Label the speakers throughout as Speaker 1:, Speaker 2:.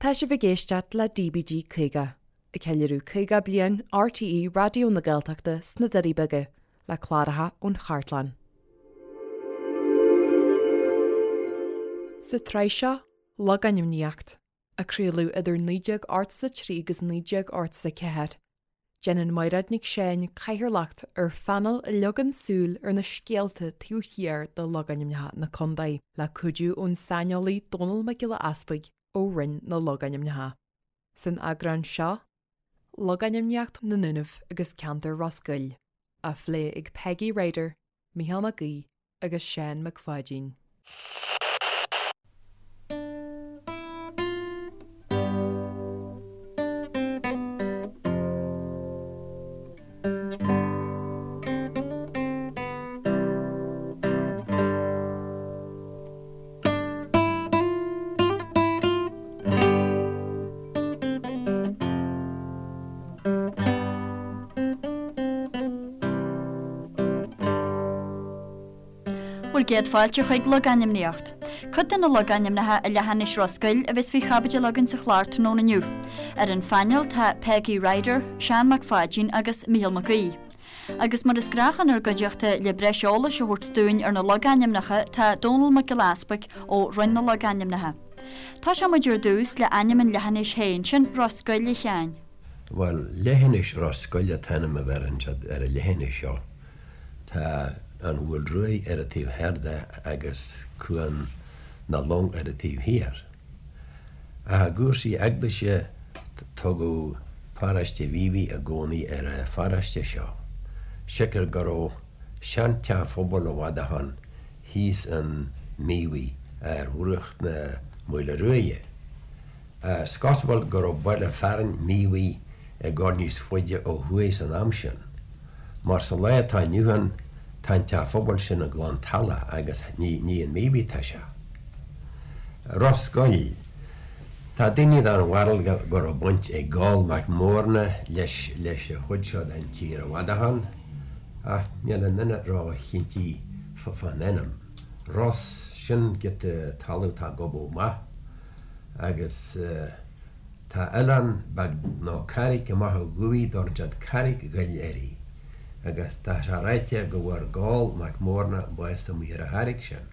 Speaker 1: Tá sibh ag éisteacht le DBG 50, ag ceiliúradh 50 bliain RTÉ Raidió na Gaeltachta sna Doirí Beaga, le cláracha ón chartlann. Sa tsraith seo, Logainmníocht, a craoladh idir 1983 agus 1984, Déanann Mairéad Nic Seáin cathaoirleacht ar phainéal a leagann súil ar na scéalta taobh thiar de logainmneacha na contae, le cuidiú ón saineolaí Dónall Mac Giolla Easpaig ó Roinn na Logainmneacha. San eagrán seo, Logainmníocht na nDúnaibh agus ceantar Ros Goill, á phlé ag Peigí Ryder, Mícheál Mac Aoidh agus Seán Mac Pháidín.
Speaker 2: Bhur gcéad fáilte chuig Logainmníocht. Cuid de na logainmneacha i leathinis Ros Goill a bheas faoi chaibidil againn sa chlár tráthnóna inniu. Ar an phainéal tá Peigí Ryder, Seán Mac Pháidín agus Mícheál Mac Aoidh. Agus mar is gnách inár gcuideachta le breis eolais a thabhairt dúinn ar na logainmneacha tá Dónall Mac Giolla Easpaig ó Roinn na Logainmneacha. Tosóidh muid ar dtús le ainm an leathinis féin, sin Ros Goill a Sheáin.
Speaker 3: Bhuel, leithinis Ros Goill an t-ainm a bheireann siad ar an leithinis seo. Tá an Mhaoil Ruaidh ar an taobh thoir de agus Cuan na Long ar an taobh thiar. Ach i gcúrsaí eaglaise tugadh paróiste Mhíobhaigh i gcónaí ar an pharóiste seo, siocair go raibh seanteach phobail i bhfad ó shoin thíos in Míobhaigh ar bhruach na Maoile Ruaidhe. Is cosúil go raibh baile fearainn Míobhaigh ag dul níos faide ó thuaidh san am sin, mar sa lá atá inniu ann tá an teach phobail sin i gClann Tala agus ní in Míobhaigh atá sé. Ros Goill. Tá daoine den bharúil go raibh baint ag Goll Mac Mórna leis leis an chuid seo den tír i bhfad ó shoin, ach níl aon duine ró-chinnte fán ainm. Ros, sin giota talamh atá gobadh amach agus tá oileán beag nó carraig amach ó thuaidh dtabharann siad Carraig Ghoill uirthi agus tá sé ráite go bhfuair Goll Mac Mórna bás amuigh ar an charraig sin.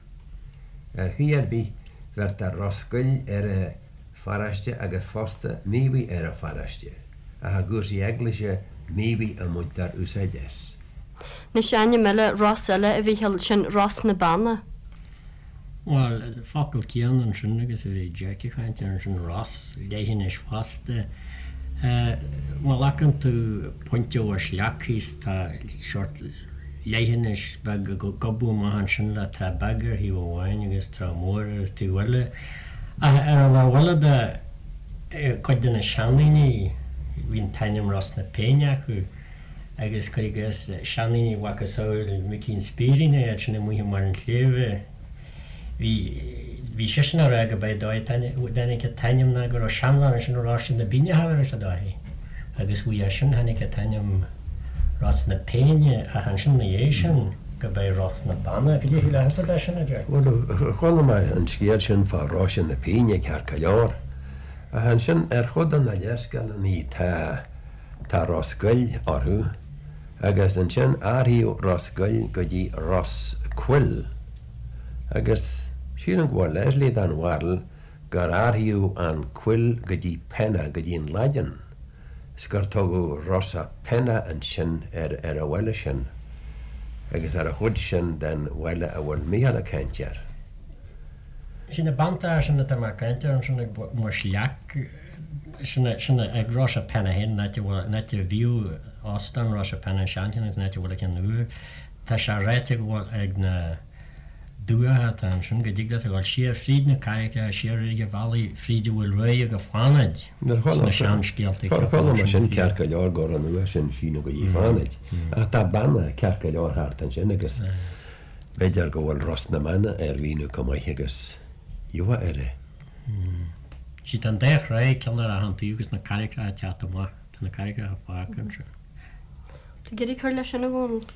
Speaker 3: Ar chaoi ar bith, bheirtear Ros Goill ar an pharóiste agus fosta Míobhaigh ar an pharóiste, ach i gcúrsaí eaglaise, Míobhaigh a mbaintear úsáid as.
Speaker 2: Anois ainm eile, Ros eile a Mhíchíl, sin Ros na Beanna.
Speaker 4: Bhuel, an focal céanna ansin agus a bhí Jack ag caint air ansin, Ros, leithinis fosta. Má ghlacann tú pointe ó Sleacht thíos tá seort leithinis beag ag gobadh amach ansin le trá beag ar thaobh amháin agus trá mór ar an taobh eile. Ach ar an lámh eile de, cuid de na seandaoine, bhí an t-ainm Ros na Péine acu agus cuir i gcás seandaoine mhacasamhail Micí an Spírín iad sin amuigh i mbarr an tsléibhe, Bhí, bhí seisean á rá go b'é dóigh a dtáinig an t-ainm ná go raibh seanbhean ansin a raibh Rois na Bíne thar ar a dóigh agus uaidh é sin tháinig an t-ainm Ros na Péine ach ansin 'na dhiaidh sin go b'é Ros na Banna. Cad é a shílfeása de sin, a Jack?
Speaker 3: Bhuel, chuala mé an scéal sin fá Rois na Péine ceart go leor ach ansin ar chuid de na léarscáileanna tá, tá Ros Goill orthu. Agus ansin athraíodh Ros Goill go dtí Ros Coill. Agus sílim go bhfuil Leslie den bharúil gur athraíodh an Coill go dtí Penna, go dtí an Laidin, is gur tugadh Rosa Penna ansin ar ar an bhaile sin, agus ar an chuid sin den bhaile a bhfuil Mícheál ag caint air.
Speaker 4: Sin na beanntracha sin atá mé ag caint air ansin ag Muis Leac. Sin ag Rosa Penna féin, an áit a bhfuil, an áit a bhíodh óstán Rosa Penna, an seancheann agus an áit a bhfuil an ceann úr. Tá sé ráite go bhfuil ag na dumhacha atá ansin go dtig leat a dhul siar fríd na carraigeacha, siar ag an bhealaigh fríd an Mhaoil Ruaidh go Fánaid sna seanscéalta
Speaker 3: Chuala chuala mé sin ceart go leor go raibh an uair sin síneadh go dtí Fánaid ach tá beanna ceart go leor thart ansin agus b'fhéidir go bhfuil Ros na mBeanna ar mhíniú chomh maith agus gheofá air é.
Speaker 4: Sea, tá an dá thráigh, ceann ar achan taobh agus na carraigeacha ag teacht amach, tá na carraigeacha fágtha ansin.
Speaker 2: Tú ag iarraidh cur leis sin, a Dhónaill?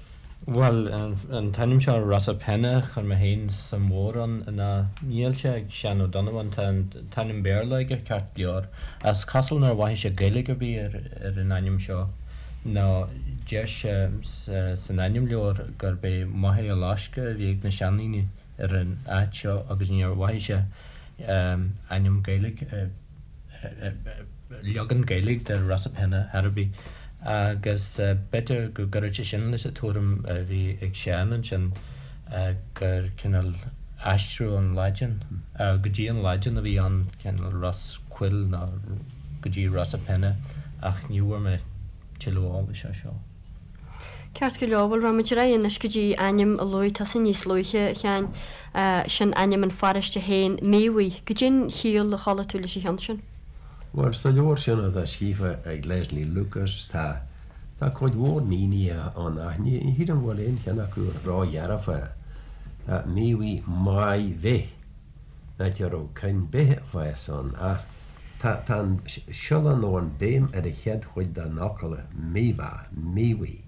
Speaker 5: Bhuel, an t-ainm seo Rosapenna, chuir mé féin suim mhór ann ná níl sé ag Seán Ó Donnabháin, tá an t-ainm Béarla aige ceart go leor. Is cosúil nár mhaithigh sé Gaeilge ar bith ar an ainm seo, nó deir sé san ainmleabhar gurb é Machaire Loiscthe a bhí ag na seandaoine ar an áit seo agus níor mhaithigh sé ainm Gaeilge. leagan Gaeilge de Rosapenna ar bith agus b'fhéidir go gcuirfeadh sé sin leis an tuairim a bhí ag Seán ansin gur cineál aistriú ón Laidin go dtí an Laidin a bhí ann, cineál Ros Coill nó go dtí Rosapenna ach ní bhfuair mé tuilleadh eolais air seo.
Speaker 2: Ceart go leor, bhuel rachaimid ar aghaidh anois go dtí ainm a luaigh tusa níos luaithe, a Sheáin, sin ainm an pharóiste féin, Míobhaigh. Goidé an chiall a chuala tú leis an cheann sin?
Speaker 3: Bhuel, sa leabhar sin atá scríofa ag Leslie Lucas tá tá cuid mhór mínithe ann ach ní shílim go bhfuil aon cheann acu ródhearfa. Míobhaigh Maigh Bhith, an áit a raibh crainn beithe ag fás ann, ach tá tá an siolla nó an béim ar an chéad chuid den fhocal Míobha, Míobhaigh,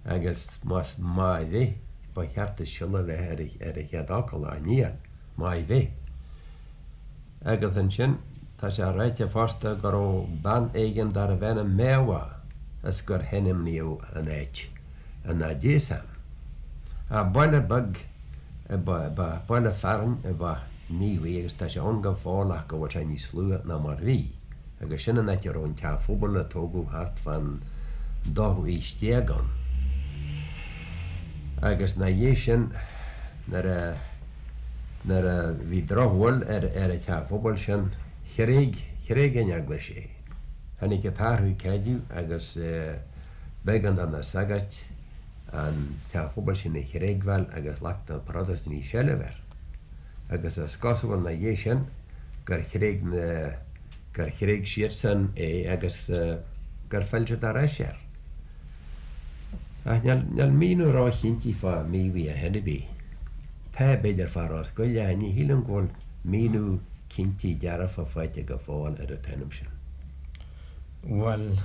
Speaker 3: agus más Maigh Bhith, ba cheart an siolla a bheith ar an chéad fhocal, ach níl, Maigh Bhith. Agus ansin, tá sé ráite fosta go raibh bean éigin darbh ainm Méabha is gur hainmníodh an áit ina diaidh san. Ach baile beag ba baile fearainn ab ea Míobhaigh agus tá sé ann go fóill ach go bhfuil sé níos lú ná mar bhí agus sin an áit a raibh an teach phobail a tógadh thart fán dóú haois déag ann. Agus ina dhiaidh sin nuair a nuair a bhí drochbhail ar ar an teach phobail sin thréig thréig an eaglais é. Tháinig an t-athrú creidimh agus b'éigean do na sagairt an teach phobail sin a thréigbheáil agus ghlac na Protastúnaigh seilbh air. Agus is cosúil ina dhiaidh sin gur thréig na, gur thréig siadsan é agus gur phill siad ar ais air. Ach níl, níl míniú róchinnte fá Míobhaigh ar chor ar bith. Tá, b'fhéidir, fá Ros Goill ach ní shílim go bhfuil míniú cinnte dearfa faighte go fóill ar an t-ainm sin.
Speaker 5: Bhuel,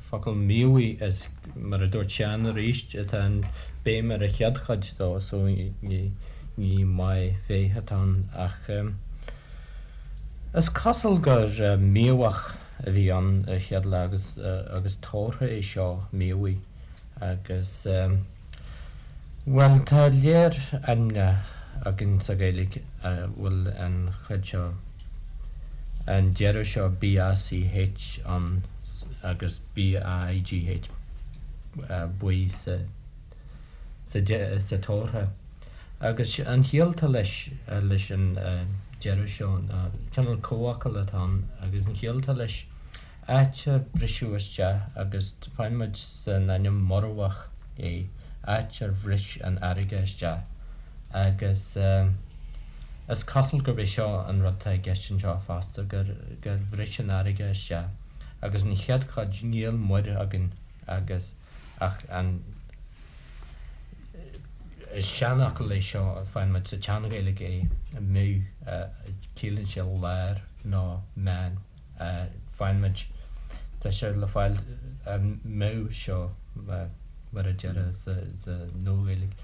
Speaker 5: focal Míobhaigh is mar a dúirt Seán arís, tá an béim ar an chéad chuid dó so ní ní Maigh Bhéith atá ann ach is cosúil gur Míobhach a bhí ann ar chéad lá agus agus tabharthach é seo Míobhaigh agus bhuel tá léar ainmneacha againn sa Ghaeilge a bhfuil an chuid seo, an deireadh seo BACH ann agus BAIGH buí sa sa sa tabharthach. Agus an chiall atá leis leis an deireadh seo ná cineál comhfhocal atá ann agus an chiall atá leis áit ar briseadh isteach agus faigheann muid san ainm Muirbheach é, áit ar bhris an fharraige isteach agus is cosúil gurb é seo an rud atá i gceist anseo fosta, gur gur bhris an fharraige isteach agus an chéad chuid níl muir againn agus ach an is seanfhocal é seo, faigheann muid sa tSean-Ghaeilge é, midh, ciallaíonn sé lár nó meán. Faigheann muid, tá sé le fáil an midh seo mar a déarfá sa Nua-Ghaeilge,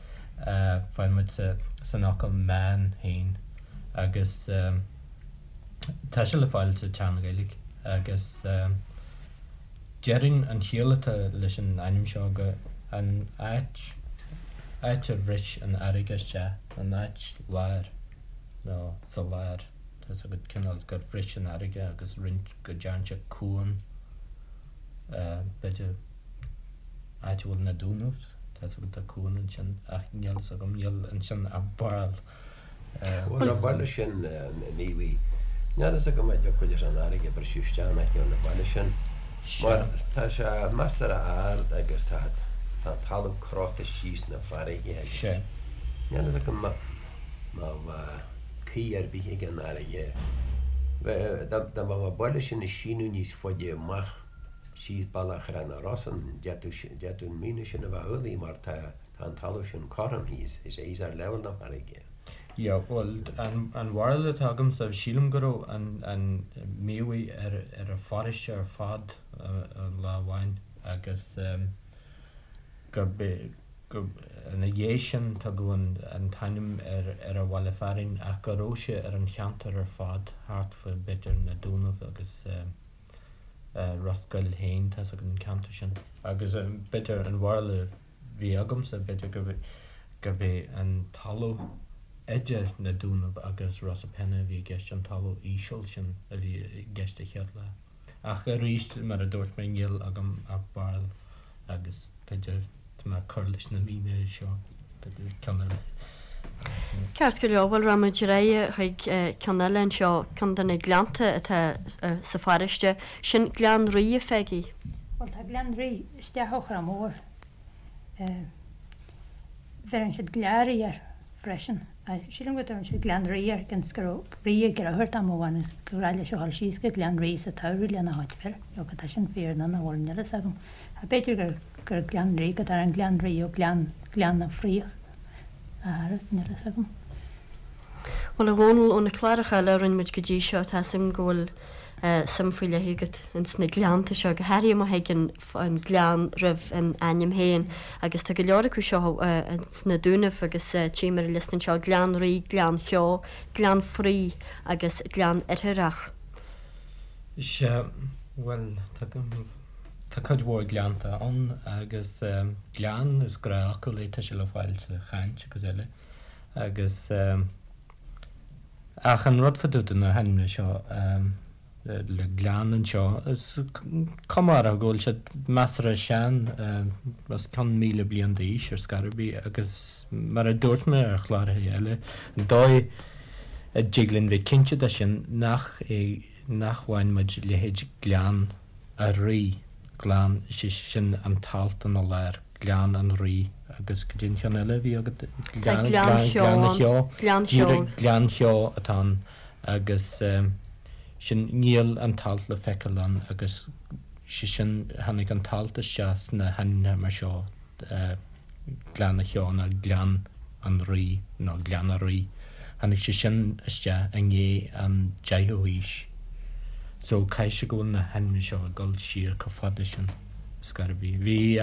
Speaker 5: faigheann muid san fhocal meán féin agus tá sé le fáil sa tSean-Ghaeilge agus déarfainn an chiall atá leis an ainm seo go an áit, áit ar bhris an fharraige isteach, an áit láir nó sa lár. Tá's agat cineál gur bhris an fharraige agus roinnt go dtearn sé cuan, b'fhéidir áit a bhfuil na Dúnaibh, tá's agat tá cuan ansin ach níl fhios agam, níl ansin ach barúil.
Speaker 3: Bhuel an baile sin Míobhaigh, níl fhios agam an dtiocfadh leis an fharraige briseadh isteach in aice an bhaile sin mar tá sé measartha ard agus tá an talamh croite síos na farraige agus níl fhios agam má bheadh caoi ar bith ag an fharraige. Dá mbeadh an baile sin ag síneadh níos faide amach síos bealach Thrá na Rosann, d'fhéadfadh an míniú sin a bheith amhlaidh mar tá an talamh sin cothrom thíos, is é thíos ar leibhéal na farraige.
Speaker 5: Yeah, bhuel, an bharúil atá agamsa, sílim go raibh an Míobhaigh ar an pharóiste ar fad lá amháin agus gurb é. Gur ina dhiaidh sin tugadh an t-ainm ar an bhaile fearainn ach go raibh sé ar an cheantar ar fad thart fá b'fhéidir na Dúnaibh agus Ros Goill féin, tá's agat an ceantar sin. Agus b'fhéidir an bharúil a bhí agamsa b'fhéidir gurb é an talamh idir na Dúnaibh agus Ros a' Penna a bhí i gceist, an talamh íseal sin a bhí i gceist a chéad lá. Ach arís, mar a dúirt mé, níl agam ach barúil agus b'fhéidir tá mé ag cur leis na mínithe seo, b'fhéidir ceann eile.
Speaker 2: Ceart go leor, bhuel rachaidh muid ar aghaidh chuig ceann eile anseo, ceann de na gleannta atá sa pharóiste, sin Gleann Rí, a Pheigí.
Speaker 6: Bhuel tá Gleann Rí isteach ó Chrois Mhór. Bheireann siad Gleáraí air freisin. Sílim go dtabharann siad Gleann Rí air cionn is go raibh rí ag deartháir dom amháin agus gur ghnách leis a dhul síos go Gleann Rí sa tsamhradh lena chuid fir. Nó tá sin fíor nó nach bhfuil, níl a fhios agam. Ach b'fhéidir gur gur Gleann Rí go dtagann Gleann Rí ó Gleann Gleann na Fraoch a thar, níl a fhios agam.
Speaker 2: Bhuel, a Dhónaill, ó na cláracha eile a rinne muid go dtí seo, tá 'fhios agam go bhfuil suim faoi leith agat ins na gleannta seo, go háirithe má thagann an gleann roimh an ainm féin, agus tá go leor acu seo ins na Dúnaibh agus tchím ar an liosta anseo, Gleann Rí, Gleann Cheo, Gleann Fraoigh agus Gleann Oirthearach.
Speaker 5: Sea, bhuel, tá, tá cuid mhór gleannta ann agus gleann, is gnáthfhocal é, tá sé le fáil sa chaint agus eile agus. Ach an rud fá dtaobh de na hainmneacha seo le gleann anseo, is cuma orthu go bhfuil siad measartha sean, os cionn 1,000 bliain d'aois ar scor ar bith, agus mar a dúirt mé ar chláracha eile, an dóigh a dtig linn bheith cinnte de sin nach é nach bhfaigheann muid leithéid Gleann a' Rí, Gleann, sé sin an t-alt ina lár. Gleann an Rí agus cad é an cheann eile a bhí agat?
Speaker 2: Tá Gleann Cheo ann.
Speaker 5: Gleann Cheo. Díreach Gleann Cheo atá ann agus sin, níl an t-alt le feiceáil ann agus sé sin, tháinig an t-alt isteach sna hainmneacha mar seo, Gleann a' Cheo nó Gleann an Rí nó Gleann a' Rí. Tháinig sé sin isteach i ndiaidh an deichiú haois. So caithfidh sé go bhfuil na hainmneacha seo ag dul siar chomh fada sin. Scor ar bith. Bhí,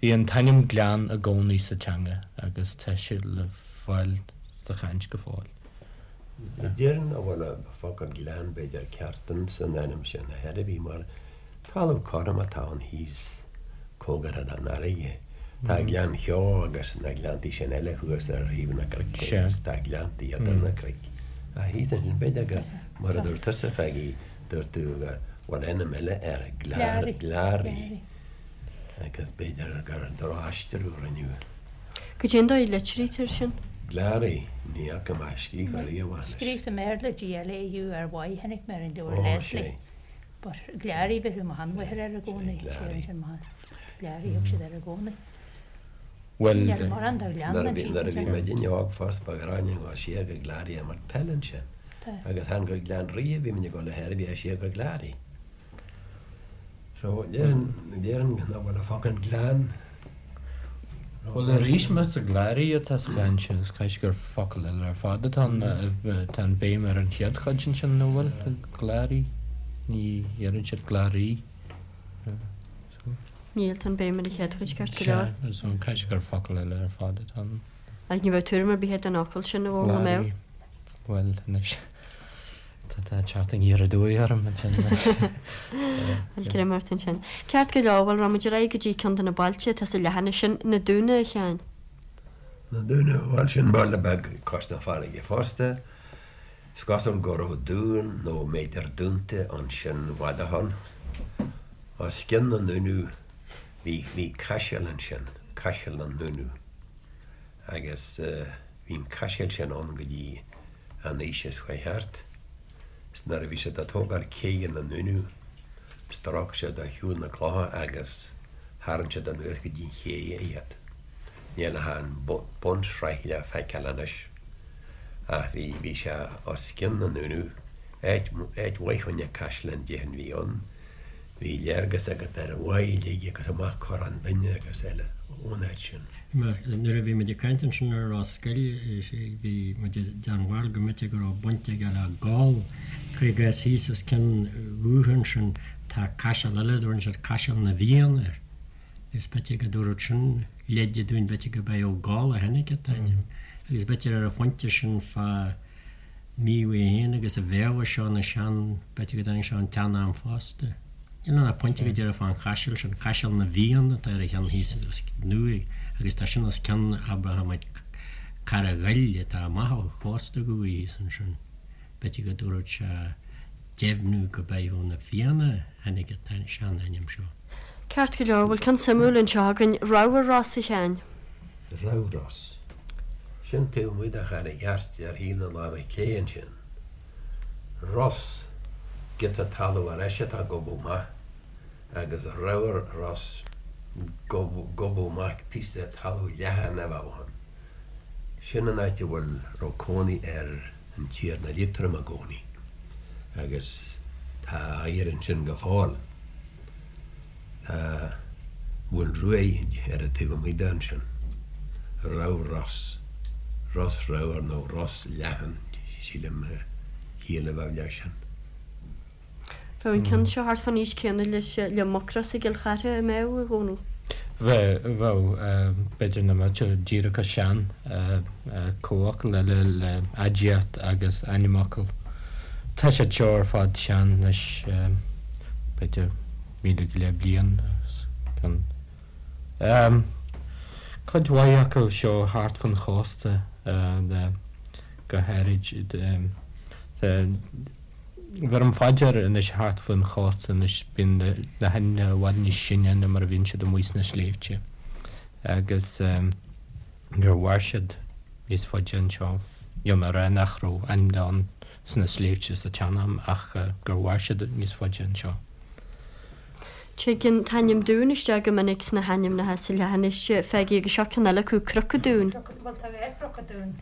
Speaker 5: bhí an t-ainm Gleann i gcónaí sa teanga agus tá sé le fáil sa chaint go fóill.
Speaker 3: Déarfainn nach bhfuil an focal gleann b'fhéidir ceart ins an ainm sin ar chor ar bith mar talamh cothrom atá ann thíos cóngarach don fharraige. Tá Gleann Cheo agus na gleanntaí sin eile thuas ar thaobh na gcnoic agus tá gleanntaí idir na cnoic. Ach thíos ansin b'fhéidir gur mar a dúirt tusa Pheigí Dúirt tú go bhfuil ainm eile air, Gleáraí, agus b'fhéidir gur drochaistriú a rinneadh.
Speaker 2: Cad é an dóigh a litrítear sin?
Speaker 3: Gleáraí, ní fhaca mé scríofa riamh anois.
Speaker 6: Scríofa i mBéarla, G-L-A-U-R-Y, chonaic mé ar an leabhar Leslie. But Gleáraí bheireadh mo sheanmháthair air i gcónaí. Gleáraí thug siad air i gcónaí.
Speaker 5: Bhuel,
Speaker 6: Níl mórán de ghleann ann
Speaker 3: Nuair a bhí muidinne óg fosta ba ghnách linn dul siar go Gleáraí ag imirt peile ansin. Agus chan go Gleann Rí a bhí muid ag dul ar chor ar bith siar go Gleáraí. So déarfainn, déarfainn nach bhfuil an focal gleann
Speaker 5: Bhuel arís más Gleáraí atá sa chaint sin is caithfidh gur focal eile ar fad atá ann, tá an béim ar an chéad chuid ansin nach bhfuil? Gleáraí, ní dheireann siad Gleáraí.
Speaker 2: Níl, tá an béim ar an chéad chuid ceart go leor.
Speaker 5: Sea, so caithfidh sé gur focal eile ar fad atá ann.
Speaker 2: Ach ní bheadh tuairim ar bith agat den fhocal sin, a Dhónaill, an mbeadh?
Speaker 5: Bhuel, anois, tá tá teacht aniar aduaidh orm ansin.
Speaker 2: Bhuel, greim ort ansin. Ceart go leor, bhuel, rachaidh muid ar aghaidh go dtí ceann de na bailte atá sa leathanach sin, Na Dúna, a Sheáin.
Speaker 3: Na Dúna, bhuel, sin baile beag cois na farraige fosta. Is cosúil go raibh dún nó b'fhéidir dúnta ansin i bhfad ó shoin. Os cionn na nDúnaibh bhí bhí caiseal ansin, Caiseal na nDúnaibh, agus bhí an caiseal sin ann go dtí an aois seo chuaigh thart. Is nuair a bhí siad ag tógáil céidhe na nDúnaibh, stróic siad ar shiúl na clocha agus tharraing siad anuas go dtí an ché iad. Níl ach an bunsraith le feiceáil anois. Ach bhí, bhí sé os cionn na nDúnaibh. Áit, áit mhaith choinne caisleán déarfainn a bhí ann. Bhí léargas agat ar an bháigh uilig agus amach Corrán Binne agus eile ón áit sin.
Speaker 4: Mar nuair a bhí muid ag caint ansin ar Ros Goill, bhí muid den bharúil go mb'fhéidir go raibh baint aige le Goll. Cuir i gcás thíos os cionn dhúiche ansin tá caiseal eile, dtabharann siad Caiseal na bhFiann air. Is b'fhéidir go dtabharfadh sin. Leid an Dúin b'fhéidir gurb é Ó Gall a tháinig an t-ainm agus b'fhéidir ar an phointe sin fá Mheadhbh í féin agus a Mhéabha seo na sean, b'fhéidir go dtáinig sé ón tsean-am fosta. Níl ann ach pointe go díreach fán chaiseal sin, Caiseal na bhFiann atá ar an cheann thíos os nua agus tá sin os cionn abrahamite Carraig Ghoill atá amach ó chósta Dhubhaigh thíos ansin. B'fhéidir go dtabharfadh sé deimhniú go b'é ó na Fianna a tháinig an sean-ainm seo.
Speaker 2: Ceart go leor, bhfuil ceann suimiúil anseo againn, Ramhar Ros, a Sheáin?
Speaker 3: Ramhar Ros. Sin taobh amuigh de Charraig Airt ar thaobh na láimhe clé ansin. Ros, giota talaimh ar ais atá gobadh maith, agus Ramhar Ros, gobadh maith, píosa talaimh leathan a bheadh ann. Sin an áit a bhfuil, raibh cónaí ar an Tiarna Liatroim i gcónaí agus tá a oighear ansin go fóill. Tá Mhuin Ruaidh ar an taobh amuigh de ansin. Ramhar Ros, Ros Ramhar nó Ros Leathan, sílim a chiall a bheadh leis sin.
Speaker 2: Bheadh an ceann seo thart fán aois céanna leis le Mucros i gCill Chartha, an mbeadh, a Dhónaill?
Speaker 5: Bheadh, bheadh. B'fhéidir nach mbeadh sé díreach chomh sean. Comhfhocal eile le aidiacht agus ainmfhocal. Tá siad seo ar fad sean anois, b'fhéidir 1000 go leith bliain agus ceann. Cuid mhaith acu seo thart fan chósta go háirid. Bheirim fá dear anois thart faoin chósta anois bíonn na hainmneacha i bhfad níos sine ná mar a bhíonn siad amuigh sna sléibhte agus gur mhair siad níos faide anseo. Níl mé ag rá nach raibh ainmneacha ann sna sléibhte sa tsean-am ach gur mhair siad níos faide anseo.
Speaker 2: Tagann an t-ainm Dún isteach go minic sna hainmneacha sa leathinis, Pheigí, agus seo ceann eile acu, Cnoc an Dúin.
Speaker 6: Bhuel tá dhá Chnoc an Dúin.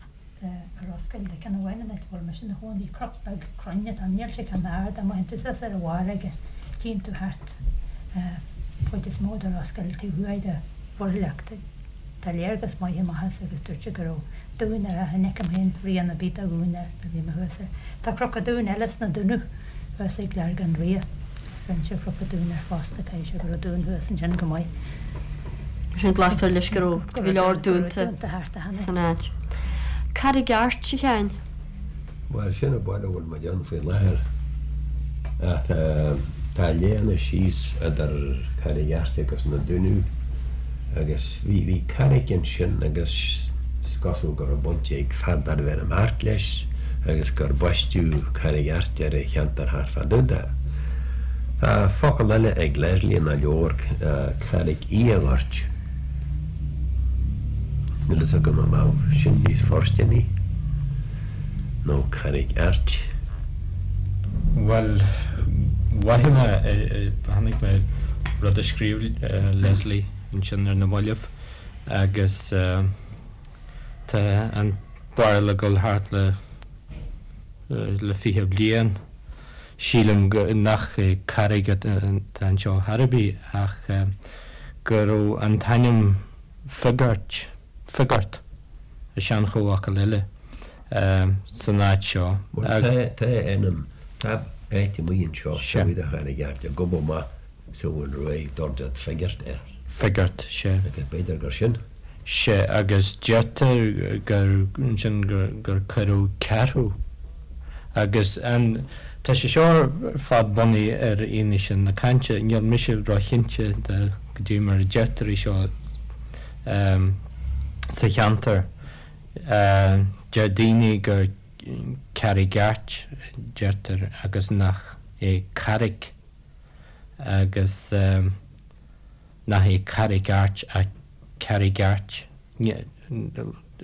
Speaker 6: i Ros Goill tá ceann amháin an áit a bhfuil mise ina chónaí, cnoc beag cruinn atá ann, níl sé an-ard ach má théann tú suas ar a bharr aige tchíonn tú thart an chuid is mó de Ros Goill taobh thuaidh de Mhuir Leachta. Tá léargas maith amach as agus dúirt sé go raibh dún air ach ní fheicim féin rian ar bith de dhún air nuair a bhí mé thuas air. Tá Cnoc an Dúin eile sna Dúnaibh thuas ag Leargán Ria. Bheinnse ar Chnoc an Dúin air fosta, caithfidh sé go raibh dún thuas ansin go maith.
Speaker 2: Mar sin glactar leis go raibh go leor dúnta san áit. Carraig Airt, a Sheáin?
Speaker 3: Bhuel, sin an baile a bhfuil muid ann faoi láthair. Ach tá léana síos idir Carraig Airt agus na Dúnaibh agus bhí, bhí carraig ansin agus is cosúil go raibh baint ag fear darbh ainm Art leis agus gur baisteadh Carraig Airt ar an cheantar thart fá dtaobh de. Tá focal eile ag Leslie ina leabhar, Carraig Uí Ghoirt. Níl fhios agam an mbeadh sin níos fóirsteanaí nó Carraig Airt.
Speaker 5: Bhuel, mhothaigh mé, chonaic mé rud a scríobh Leslie ansin ar na mallaibh agus tá an barúil ag dul thart le le 20 bliain. Sílim nach carraig atá anseo chor ar bith ach go raibh an t-ainm Figart, Figart, i sean-chomhfhocal eile, san áit seo.
Speaker 3: Bhuel, tá ainm, tá áit amuigh anseo taobh amuigh de Charraig Airt, gobadh maith sa Mhuin Ruaidh, dúirt Figart air.
Speaker 5: Figart, sea.
Speaker 3: Agus b'fhéidir gur sin.
Speaker 5: Sea, agus deirtear gur ansin gur cuireadh ceathrú. Agus an, tá sé seo ar fad bunaithe ar fhianaise na cainte, níl mise róchinnte de goidé mar a deirtear é seo sa cheantar. Deir daoine gur Carraig Airt a deirtear agus nach é Carraig agus. nach é Carraig Airt ach Carraig Airt.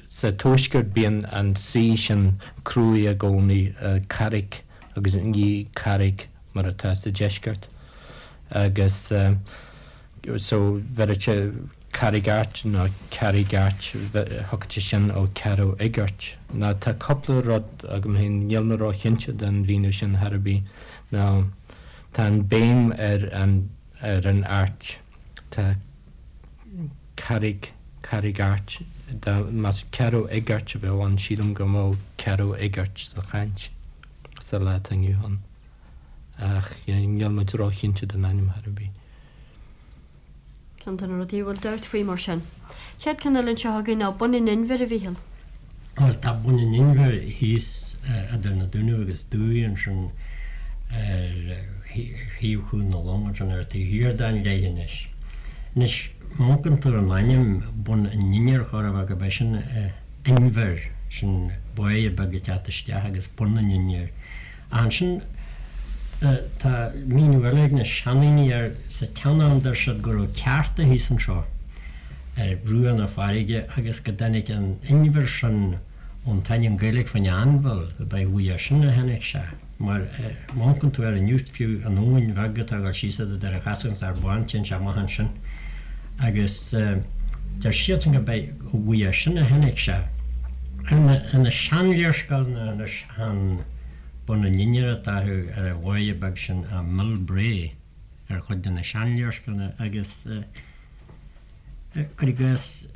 Speaker 5: Sa tuaisceart bíonn an C sin cruaidh i gcónaí, Carraig agus ní Carraig mar atá sa deisceart. Agus so bheireadh sé Carraig Airt nó Carraig Airt, thiocfadh sé sin ó Ceathrú Fhighirt. Nó tá cúpla rud agam féin, níl mé róchinnte den mhíniú sin chor ar bith, nó tá an béim ar an ar an Airt. Tá Carraig, Carraig Airt, dá, más Ceathrú Fhighirt a bheadh ann, sílim go mbeadh Ceathrú Fhighirt sa chaint sa lá atá inniu ann. Ach níl muid róchinnte den ainm chor ar bith.
Speaker 2: Ceann de na rudaí a bhfuil dabht faoi mar sin. Chéad ceann eile anseo againn ná Bun an Inbhir, a Mhíchíl.
Speaker 4: Bhuel, tá Bun an Inbhir thíos idir na Dúnaibh agus Dumhaigh ansin ar thaobh Chuan na Long ansin ar an taobh thiar den leithinis. Anois, má amharcann tú ar an ainm Bun an Inbhir chóir a bheith gurb é sin inbhear, sin báighe beag ag teacht isteach agus Bun an Inbhir. Ach ansin tá míniú eile ag na seandaoine air, sa tsean-am deir siad go raibh ceárta thíos anseo ar bhruach na farraige agus go dtáinig an inbhear sin ón t-ainm Gaeilge fán anbhall, gurb é uaidh sin a tháinig sé. Mar má amharcann tú air inniu, fiú an abhainn bheag atá ag dul síos idir Doire Chasail agus Ard Bán, téann sé amach ansin agus deir siadsan gurb é uaidh sin a tháinig sé. Ar na seanléarscáileanna anois, Chan Bun an Inbhir atá orthu ar an bháighe beag sin ach Mill Bray ar chuid de na seanléarscáileanna agus cuir i gcás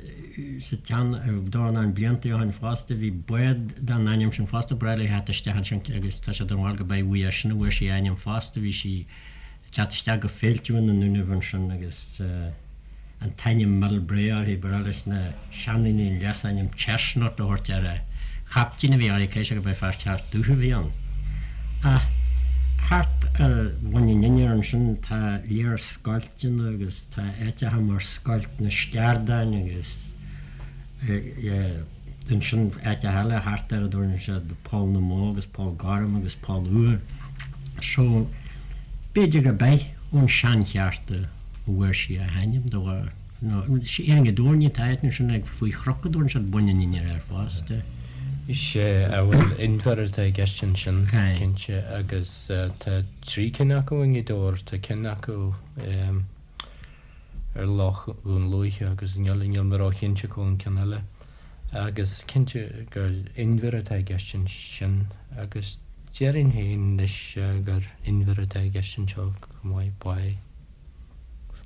Speaker 4: sa tsean dornán blianta ó shin fosta bhí bád den ainm sin fosta breá le theacht isteach ansin agus tá sé den bharúil gurb é uaidh sin a bhfuair sí a ainm fosta bhí sí ag teacht isteach go Féilte na nDúnaibh ansin agus an t-ainm Mill Bray uirthi. Ba bhreá leis na seandaoine an leasainm Chestnut a thabhairt ar an chaiptín a bhí uirthi, caithfidh sé gurb é fear ceart dubh a bhí ann. Ach thart ar Bhun an Inbhir ansin tá léar scoilteanna agus tá áiteacha mar Scoilt na Sceardáin agus ansin áiteacha eile thart air a dtabharann siad Poll na mBó agus Poll Gorm agus Poll Úr. So b'fhéidir gurb é ón seancheárta a bhfuair sí a hainm de bharr, nó ar an dtóirní atá áit ansin ag faoi chnoc a dtabharann siad Bun an Inbhir air fosta.
Speaker 5: Sea, bhuel inbhear atá i gceist ansin, cinnte, agus tá 3 cinn acu i nGaoth Dobhair, tá ceann acu ar Loch Dhún Lúiche agus níl níl mé róchinnte cá bhfuil an ceann eile. Agus cinnte gur inbhear atá i gceist ansin agus déarfainn féin anois gur inbhear atá i gceist anseo chomh maith, báigh.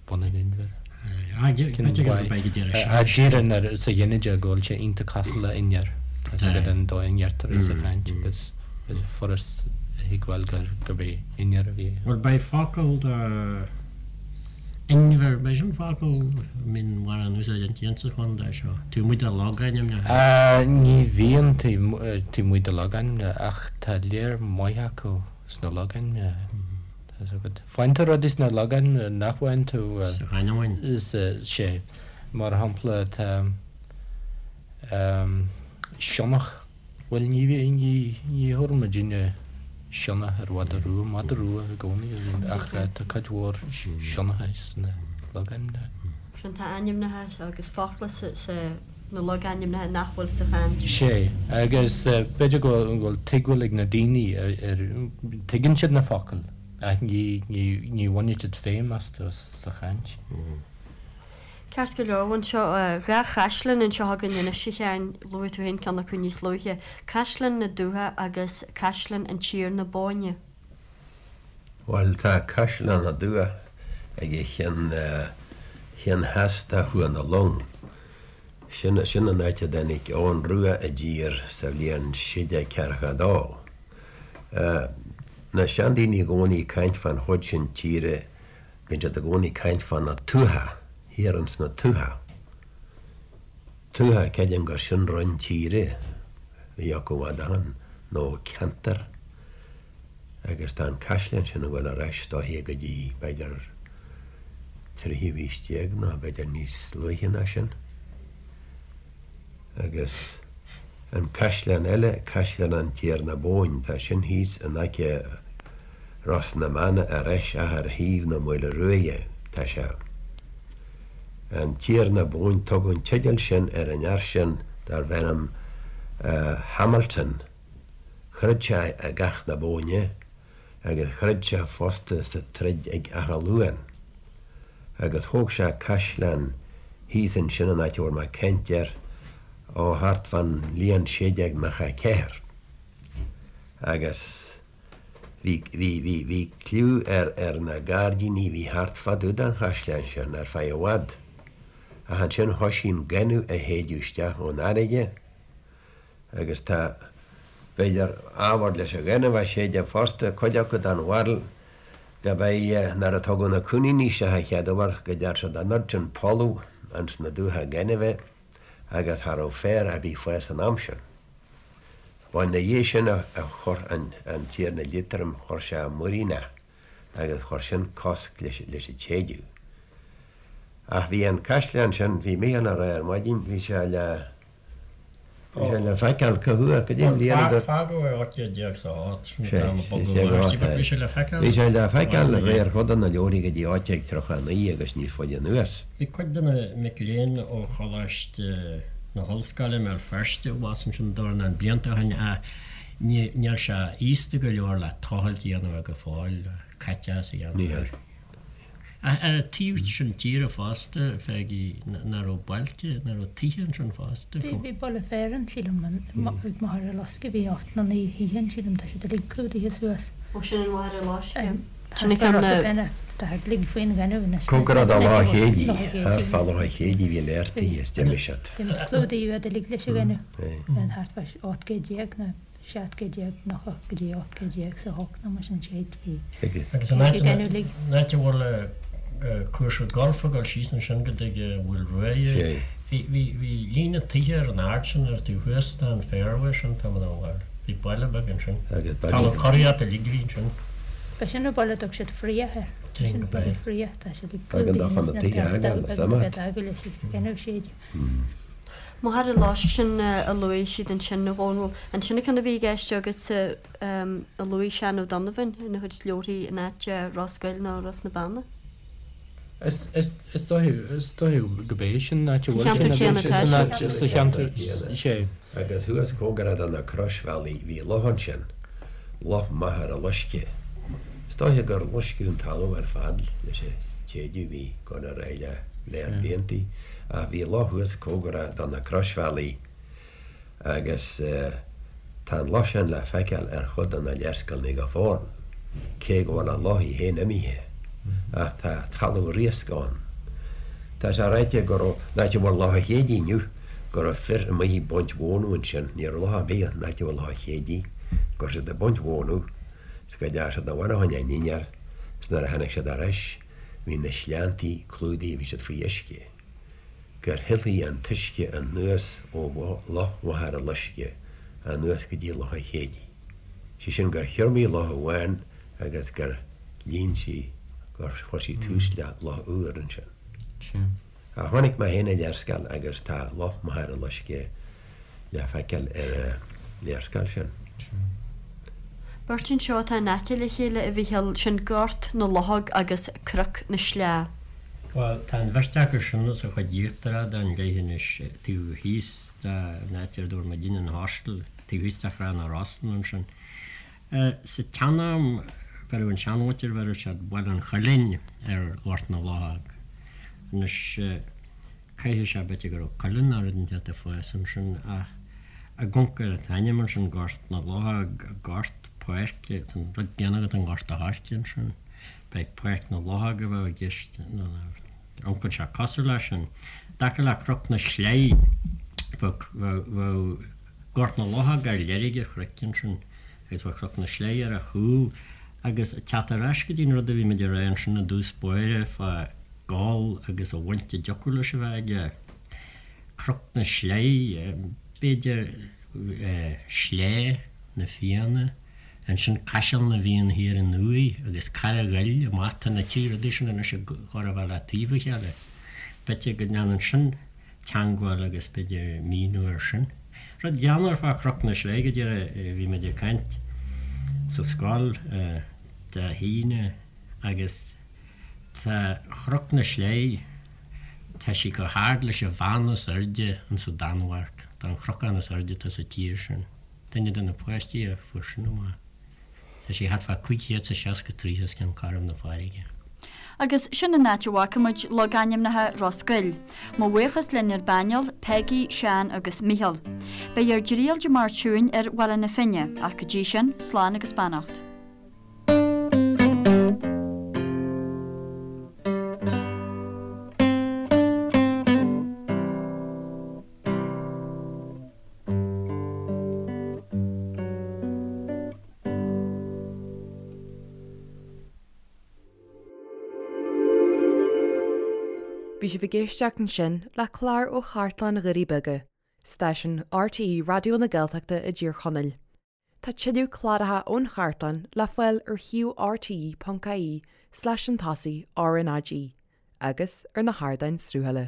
Speaker 5: Bun an Inbhir. Díreach sa ghinideach go bhfuil sé iontach cosúil le innear. Tá sé go den dóigh a ndeirtear é sa chaint agus is furast a thuigbheáil gurb é innear a bhí.
Speaker 4: Bhuel beidh focal do inbhear, beidh sin focal a mbíonn mórán úsáid inti insa chontae seo, taobh amuigh de logainmneacha.
Speaker 5: Ní bhíonn taobh amuigh de logainmneacha ach tá léar maith acu sna logainmneacha. Tá 's agat. Faigheann tú rudaí sna logainmneacha nach bhfaigheann tú
Speaker 4: sa chanúint.
Speaker 5: Sea. Mar shampla tá sionnach. Bhuel ní ní ní thabharann muidinne sionnach ar mhadadh rua, madadh rua i gcónaí a bhíonn ach tá cuid mhór sionnacha sna logainmneacha.
Speaker 2: Sin tá ainmneacha agus focla sa na logainmneacha nach bhfuil sa chaint.
Speaker 5: Sea, agus b'fhéidir go bhfuil tuigbheáil ag na daoine ar, tuigeann siad na focail ach ní, ní, ní bhaineann siad feidhm astu sa chaint.
Speaker 2: Ceart go leor, anseo, dha chaisleán anseo againn anois, a Sheáin, luaigh tú féin ceann acu níos luaithe, Caisleán na Dúiche agus Caisleán an Tiarna Bóinne.
Speaker 3: Bhuel, tá Caisleán na Dúiche ag an cheann, cheann theas de Chuan na Long. Sin, sin an áit a dtáinig Eoghan Rua i dtír sa bhliain 1642. Na seandaoine i gcónaí ag caint fán chuid sin tíre, bíonn siad i gcónaí ag caint fá na tuatha, thiar ins na tuatha. Tuatha, creidim gur sin roinn tíre a bhí acu i bhfad ó shin, nó ceantar. Agus tá an caisleán sin ag dul ar ais is dóiche go dtí b'fhéidir tríú haois déag nó b'fhéidir níos luaithe ná sin. Agus an caisleán eile, Caisleán an Tiarna Bóinn, tá sin thíos in aice Ros na mBeanna ar ais ach ar thaobh na Maoile Ruaidhe tá sé. An Tiarna Bóinn, tugadh an teideal sin ar an fhear sin darbh ainm Hamilton. Throid sé i gCath na Bóinne agus throid sé fosta sa troid ag Áth Luain. Agus thóg sé caisleán thíos ansin an áit a bhfuil mé ag caint air, ó thart fán bhliain 1694. Agus bhí, bhí, bhí, bhí cliú ar, ar na gairdíní a bhí thart fá dtaobh den chaisleán sin ar feadh i bhfad. Ach ansin thoisigh an gaineamh a shéideadh isteach ón fharraige Agus tá, b'fhéidir, ábhar leis an ghaineamh a séideadh fosta, cuid acu den bharúil. Gurb é nuair a tugadh na coiníní isteach an chéad uair go dtearn siad an oiread sin poladh ins na dumhcha gainimhe agus cha raibh féar ar bith fás san am sin. Ba ina dhiaidh sin a chuir an Tiarna Liatroim, chuir sé muiríneach agus chuir sin cosc leis an tséideadh. Ach bhí an caisleán sin, bhí Mícheál a rá ar maidin, bhí sé le, bhí sé le feiceáil cá huair, go dtí an bhliain a dúirt.
Speaker 4: Fágadh é 1808, sin an t-am a bogadh ó Aisti, but bhí sé le feiceáil.
Speaker 3: Bhí sé le feiceáil de réir chuid de na leabharthaí go dtí 1839 agus níos faide anuas.
Speaker 4: Bhí cuid de na mic léinn ó Choláiste na hOllscoile i mBéal Feirste abhus ansin dornán blianta ó shin ach níl sé aosta go leor le tochailt a dhéanamh air go fóill, caiteachas a dhéanamh air. Ach ar an taobh sin tíre fosta, Pheigí, nach raibh bailte, nach raibh tithe ansin fosta?
Speaker 6: Bhí, bhí baile fearainn, sílim, ag Machaire Loiscthe, bhí ocht nó naoi thithe ann, sílim, tá siad uilig clúdaithe suas.
Speaker 2: Ó, sin an Mhachaire Loiscthe. Sin an ceann
Speaker 6: a. Tá siad uilig faoin ghaineamh anois.
Speaker 3: Cóngarach do Loch an Chéididh, thart fá Loch an Chéididh bhí léir tithe is d'imigh siad.
Speaker 6: Clúdaíodh iad uilig leis an ghaineamh, thart fá 18 gcéad nó. 17 céad 90 go dtí 18 08 nó mar sin séid bhí
Speaker 4: Agus an áit an áit a bhfuil cúrsa golf ag dul síos ansin go dtig an Mhaoil Ruaidh bhí bhí bhí líne tithe ar an ard sin ar taobh thuas den fairway sin tá mé bhfuil bhí baile beag ansin. Talamh curaíochta uilig a bhí ansin.
Speaker 6: Ba sin an baile a dtug siad Fraoch air. Sin baile Fraoch tá siad ag
Speaker 3: clúdaigh anois na
Speaker 6: beag leis an ghaineamh séid.
Speaker 2: Machaire Loiscthe sin a luaigh siad ansin, a Dhónaill. An sin an ceann a bhí i gceist agatsa a luaigh Seán O'Donovan ina chuid leabharthaí in áit Ros Goill nó Ros na Beanna?
Speaker 5: Is dóigh, is dóigh gurb é sin an áit a bhfuil
Speaker 2: sin. Sa cheantar céanna
Speaker 5: atá sé. Sa cheantar, sé.
Speaker 3: Agus thuas cóngarach do na croisbhealaí bhí loch ansin, Loch Machaire Loiscthe. Is dóiche gur loisceadh an talamh ar fad leis an tséideadh a bhí ag dul ar aghaidh le léar bliantaí. Ach bhí loch thuas cóngarach do na croisbhealaí agus tá an loch sin le feiceáil ar chuid de na léarscáileanna go fóill, cé go bhfuil an loch í féin imithe. Ach tá talamh riasc ann. Tá sé ráite go raibh, an áit a bhfuil Loch an Chéididh inniu, go raibh fir amuigh ag baint mhónadh ansin, ní raibh loch ar bith an áit a bhfuil Loch an Chéididh, go raibh siad ag baint mhónadh is go dteachaigh siad abhaile fá choinne a ndinnéar is nuair a tháinig siad ar ais, Bhí na sleanntaí clúdaithe, bhí siad faoi uisce, gur shilfigh an t-uisce anuas ó Loch Mhachaire Loiscthe anuas go dtí Loch an Chéididh. Sé sin gur thriomaigh loch amháin agus gur líon sí, gur chuir sí tús le loch úr ansin. Ach chonaic mé féin an léarscáil agus tá Loch Machaire Loiscthe le feiceáil ar an léarscáil sin.
Speaker 2: Beirt anseo atá in aice le chéile, a Mhíchíl, sin Gort na Luchóg agus Cnoc na Sleá.
Speaker 4: Bhuel, tá an bheirt acu sin sa chuid íochtarach den leithinis, taobh thíos den áit ar dúirt muidinne an hostel, taobh thíos de Thrá na Rosann ansin. Sa tsean-am, bheireadh an seanmhuintir, bheireadh siad Baile an Choillín ar Ghort na Luchóg. Anois, caithfidh sé b'fhéidir go raibh coileann nó rud inteacht ag fás ansin ach ag amharc ar an t-ainm ansin, Gort na Luchóg, gort, páirc, tá an rud céanna agat i nGort a' Choirce ansin. B'é Páirc na Luchóg a bheadh i gceist nó amharcann sé cosúil leis sin. I dtaca le Cnoc na Sleí, bheadh, bheadh, Gort na Luchóg ar leirge an chnoic ansin agus bheadh Cnoc na Sleí ar a chúl agus ag teacht ar ais go dtí an rud a bhí muid ag rá ansin i dtús báire fá Goll agus an bhaint a dtiocfadh leis a bheith aige. Cnoc na Sleí, b'fhéidir Sleá na Fianna, ansin Caiseal na bhFiann thiar aduaidh agus Carraig Ghoill amach, tá na trí rudaí sin anois ag chóir a bheith le taobh a chéile. B'fhéidir go ndéanann sin teangmháil agus b'fhéidir míniú air sin. Rud greannmhar fá Chnoc na Sleí go díreach, bhí muid ag caint sa scoil Dé hAoine agus tá Chnoc na Sleí, tá sí chomh hard leis an bheann is airde insa Danmhairg, tá an chnocán is airde atá sa tír sin. Duine de na páistí a fuair sin amach. Tá sí thart fá 560 troigh os cionn cothrom na farraige.
Speaker 2: Agus sin an áit a bhfaca muid logainmneacha Ros Goill. Mo bhuíochas linn ar bpainéal, Peigí, Seán agus Mícheál. Beidh ár dtriail Dé Máirt seo chugainn ar Bhaile na Finne, ach go dtí sin, slán agus beannacht.
Speaker 1: Bhí sibh ag éisteacht ansin le clár ó Chartlann Dhoirí Beaga, stáisiún RTÉ Raidió na Gaeltachta i dTír Chonaill. Tá tuilleadh cláracha ón chartlann le fáil ar shuíomh rte.ie slash chun tosaigh RnaG agus ar na hardáin sruthaithe.